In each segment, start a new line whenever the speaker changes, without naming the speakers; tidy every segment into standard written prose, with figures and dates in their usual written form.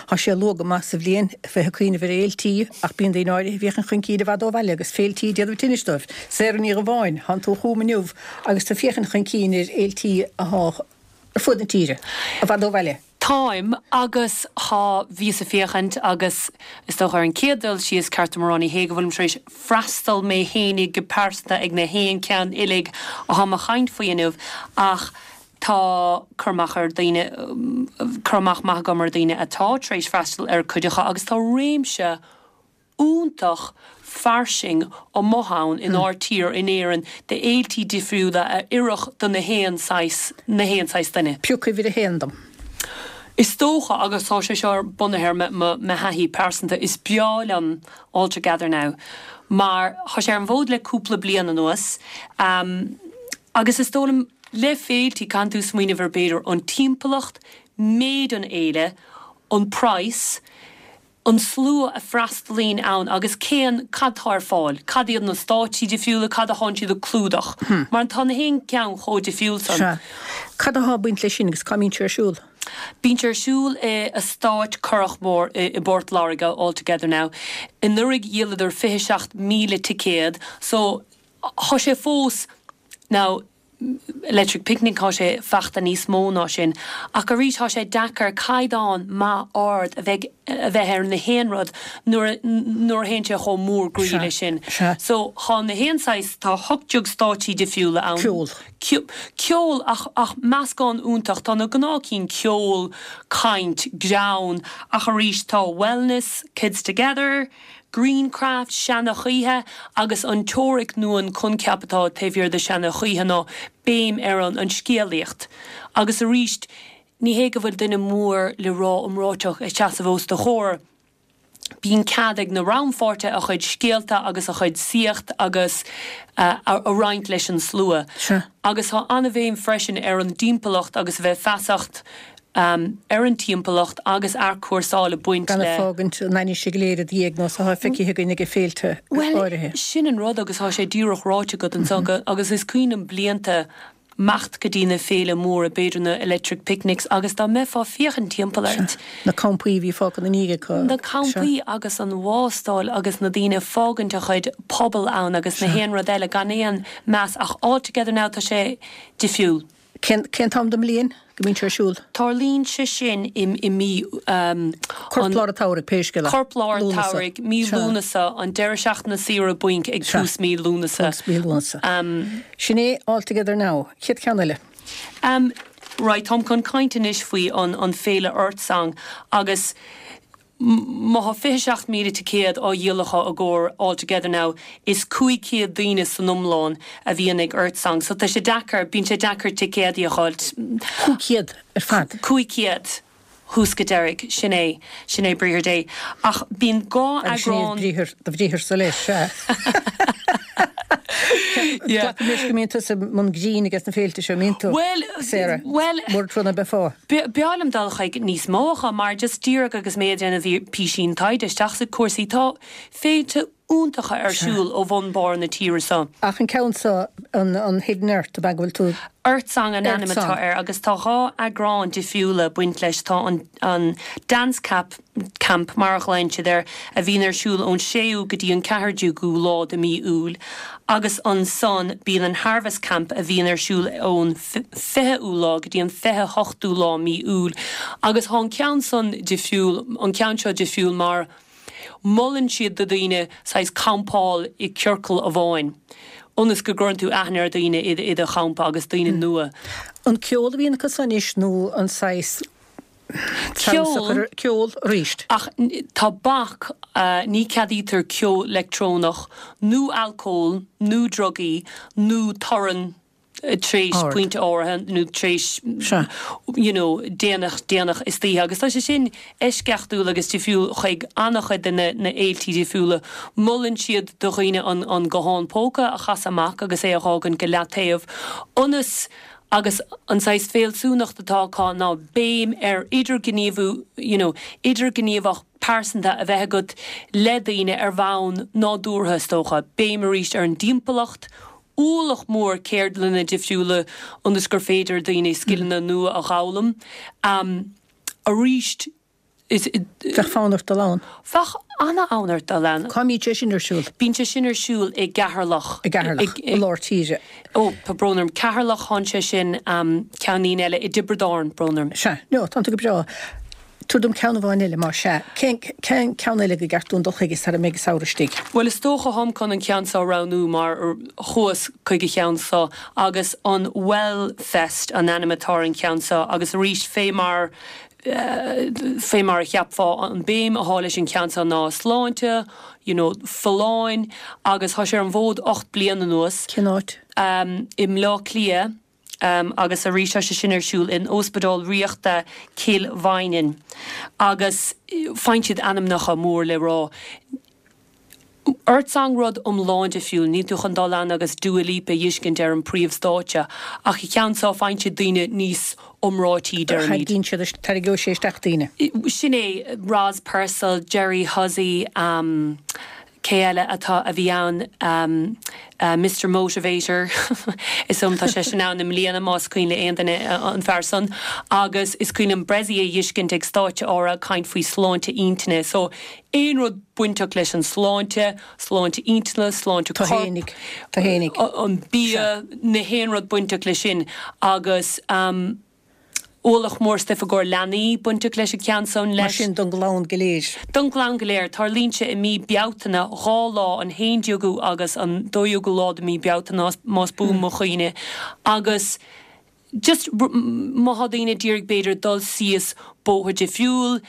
Tá sé luath go maith sa bhliain a bheith ag cuimhneamh ar fhéiltí ach bíonn daoine áirithe ag féachaint chun cinn i bhfad ó bhaile agus féiltí ag déanamh tinnis dóibh. Sarah Ní Dhubháin, thánn tú chugam inniu agus tú ag féachaint chun cinn ar fhéiltí athá ar fuaid na tíre, i bhfad ó bhaile.
Táim, agus thá, bhíos ag féachaint agus is dócha ar an chéad dul síos, ceart dom a rá, ní hé go bhfuilim tar éis freastal mé fhéinig go pearsanta ag na haon ceann uilig athá mo chaint faoi inniu ach Tá cur amach ar daoine, cur amach maith agam ar daoine atá tar éis freastal ar cuid acu agus tá réimse iontach fairsing amuigh ann inár tír, in Éirinn, d'fhéiltí difriúla a oirfeadh do na haon saghas, na haon saghas duine.
Pioc uimhir a haon dom.
Is dócha, agus tá sé seo bunaithe ar mo thaithí pearsanta, is breá liom All Together Now mar tá sé ar an bhfód le cúpla bliain anuas agus is dóigh liom, Le féiltí, caitheann tú smaoineamh ar b'fhéidir an timpeallacht, méid an fhéile, an praghas, an slua a freastalaíonn ann agus cén, cad tá ar fáil, cad iad na stáitsí difriúla, cad atánn siad ag clúdach. Mar tá na haon ceann chomh difriúil san.
Sea. Cad athá ag baint leis sin agus cá mbíonn sé ar siúl?
Bíonn sé ar siúl i Eastát Currachmore i bPort Láirge, All Together Now. Anuraidh dhíoladar 27,000 ticéad so Thá sé fós, now, Electric Picnic, thá sé fachta níos mó ná sin. Ach arís, thá sé deacair caighdeán maith ard a bheith, a bheith ar na haon rud nuair a, nuair a théann sé chomh mór groí leis sin. So, thá na haon saghas, tá 18 stáitsí difriúla ann.
Ceol.
Ceol, ach, ach meascán iontach. Tá na gnáth cinn, ceol, caint, greann, ach arís tá wellness, kids together, Greencraft, Seana-Choíche, agus an teoiric nó an coincheap atá taobh thiar de Seana-Choíche ná béim ar an an scéalaíocht. Agus arís, ní hé go bhfuil duine mór le rá iomráiteach ag seasamh os do chomhair, bíonn cead ag na rannpháirtithe a chuid scéalta agus a chuid saíocht agus a roinnt leis an slua. Agus tá an-bhéim freisin ar an dtimpeallacht agus a bheith feasacht ar an timpeallacht agus athchúrsáil ag baint
Gan le. fágaint an ainnise go léir i do dhiaidh nós atá feicthe againn ag féilte
Bhuel, áirithe. sin an rud agus tá sé díreach ráite agat ansan go, agus is cuimhin liom blianta imeacht go dtí na féile móra, b'fhéidir na Electric Picnics agus dá mbeifeá féachaint timpeall ort.
Na campaí a bhí fágtha ina ndiaidh
acu. Na campaí agus an wástáil agus na daoine ag fágaint a chuid pobal ann agus na haon rud eile gan aon meas ach All Together Now tá sé difriúil.
Cén t-am den mbliain go mbíonn sé ar siúl?
Tarlaíonn sé sin i mí
an. Corp lár an tsamhraidh, pé scéal
é. Corp lár an tsamhraidh, mí Lúnasa, an deireadh seachtaine saoire bainc ag tús mí Lúnasa.
Tús mí Lúnasa. Sin é All Together Now. Chéad cheann eile.
Right, táim chun caint anois faoi an féile Earthsong agus. Má thá 27,000 ticéad á dhíol acu i gcomhair All Together Now, is 500 daoine san iomlán a bhíonn ag Earthsong. So tá sé deacair, bíonn sé deacair ticéadaí a dh'fháilt.
500 ar fad?
500, thús go deiridh. Sin é, sin é briathar Dé. Ach bíonn
dhá Agus sin é eagrán. briathar, do bhriatharsa leis, sea.
Yeah.
Glacaim leis go mbíonn tusa i mbun grinn ages na féilte seo, mbíonn tú?
Bhuel,
Sarah,
bhuel.
Mura trua ná beifeá.
B'fhearr liom dul chuig níos mó acu mar just díreach agus mé ag déanamh písín taighde isteach sa cúrsaí tá féilte iontacha ar siúl ó bhun barr na tíre
seo. Ach an ceann seo, an Hidden Earth, ab ea go bhfuil tú.
Earthsong an ainm atá air agus tá 2 eagrán difriúla ag baint leis. Tá an Dance Cap, Camp mar a ghlaonn siad air, a bhíonn ar siúl ón 6ú go dtí an 14ú lá de mí Iúil agus ansan bíonn an Harvest Camp a bhíonn ar siúl ón 20ú lá go dtí an 28ú lá mí Iúil agus thá an ceann san difriúil, an ceann seo difriúil mar molann siad do daoine saghas campáil i ciorcal amháin ionas go gcuireann tú aithne ar daoine i do champa agus daoine nua.
An ceol a bhíonn acu san anois nó an saghas
Ceol.
Ceol arís.
Ach tá bac, ní ceadaítear ceol leictreonach nó alcól nó drugaí nó torann tar éis pointe áirithe nó tar éis you know déanach déanach istoíche. Agus tá sé sin eisceachtúil agus difriúil chuig an-chuid de na na fhéiltí difriúla. Molann siad do dhaoine an an guthán póca a chasadh amach agus é a dh'fhágaint go leataobh ionas Agus an saghas fealsúnacht atá acu ná béim ar idirghníomhú, you know, idirghníomhach pearsanta a bheith agat le daoine ar bhonn nádúrtha is dócha. Béim arís ar an dtimpeallacht, ualach mór ceardlanna difriúla ionas gur féidir daoine scileanna nua a dh'fhoghlaim. Arís. Is.
Bheadh fonn ort dul ann.
Bheadh ana-fhonn ort dul ann.
Cá mbíonn sé sin ar siúl?
Bíonn sé sin ar siúl i gCeatharlach.
I gCeatharlach, i lár tíre.
Ó, tá brón orm. Ceatharlach, thánn sé sin, ceann eile i dTiobraid Árann, brón orm.
Sea, no, tánn tú go breá. Tabhair dom ceann amháin eile, más ea. Cén, cén ceann eile go gceart dúinn dul chuige sara mbeidh an samhradh istigh?
Bhuel, is dócha tháim chun an ceann seo a roghnú mar chuas chuig an cheann seo agus an Well Fest an ainm atá ar an cheann seo agus arís fé mar fé mar a cheapfá, an béim athá leis an cheann seo ná sláinte, you know, folláin agus thá sé ar an bhfód 8 bliain anuas.
Cén áit?
I mBleá Cliath agus arís tá sé sin ar siúl in Óspideál Ríochta Cill Mhaighneann agus faigheann siad ainmneacha mór le rá. Earth Song rud iomlán difriúil, níl tú chun dul ann agus Dua Lipa a dh'fheiscint ar an príomh-stáitse, ach an ceann seo faigheann siad daoine níos iomráití, deirimid.
Tarraingíonn siad, tarraingeoidh sé isteach daoine.
Sin é, Roz Purcell, Jerry Hussey, cé eile atá, a bhí ann, Mister Motivator, is dóigh liom tá seisean ann i mbliana más cuimhin le aon duine an fear san, agus is cuimhin liom Bressie a dh'fheiscint ag stáitse áirithe ag caint faoi sláinte intinne, so aon rud bainteach leis an sláinte, sláinte intinne, sláinte
coirp,
an bia, na haon rud bainteach leis sin agus ualach mór stuif i gcomhair leanaí bainteach leis an cheann san
leis. Mar sin don gclann go léir.
Don gclann go léir. Tarlaíonn sé i mí Bealtaine, 2 lá, an 11ú agus an 12ú lá de mí Bealtaine más buan mo chuimhne agus just má thá daoine ag iarraidh b'fhéidir dul síos bóthar difriúil,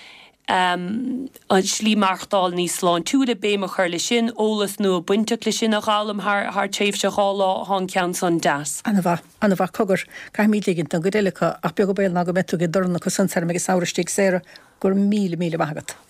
an slí maireachtáil níos sláintiúla, béim a chur le sin, eolas nua bainteach le sin a dh'fhoghlaim thar thar tréimhse 2 lá, thá an ceann san deas.
Ana-mhaith, ana-mhaith. Cogar, caithfimid ligint don gcuid eile acu ach beag an baol ná go mbeidh tú ag dorn acu san sara mbeidh an samhradh istigh. Sarah, go raibh míle, míle maith agat.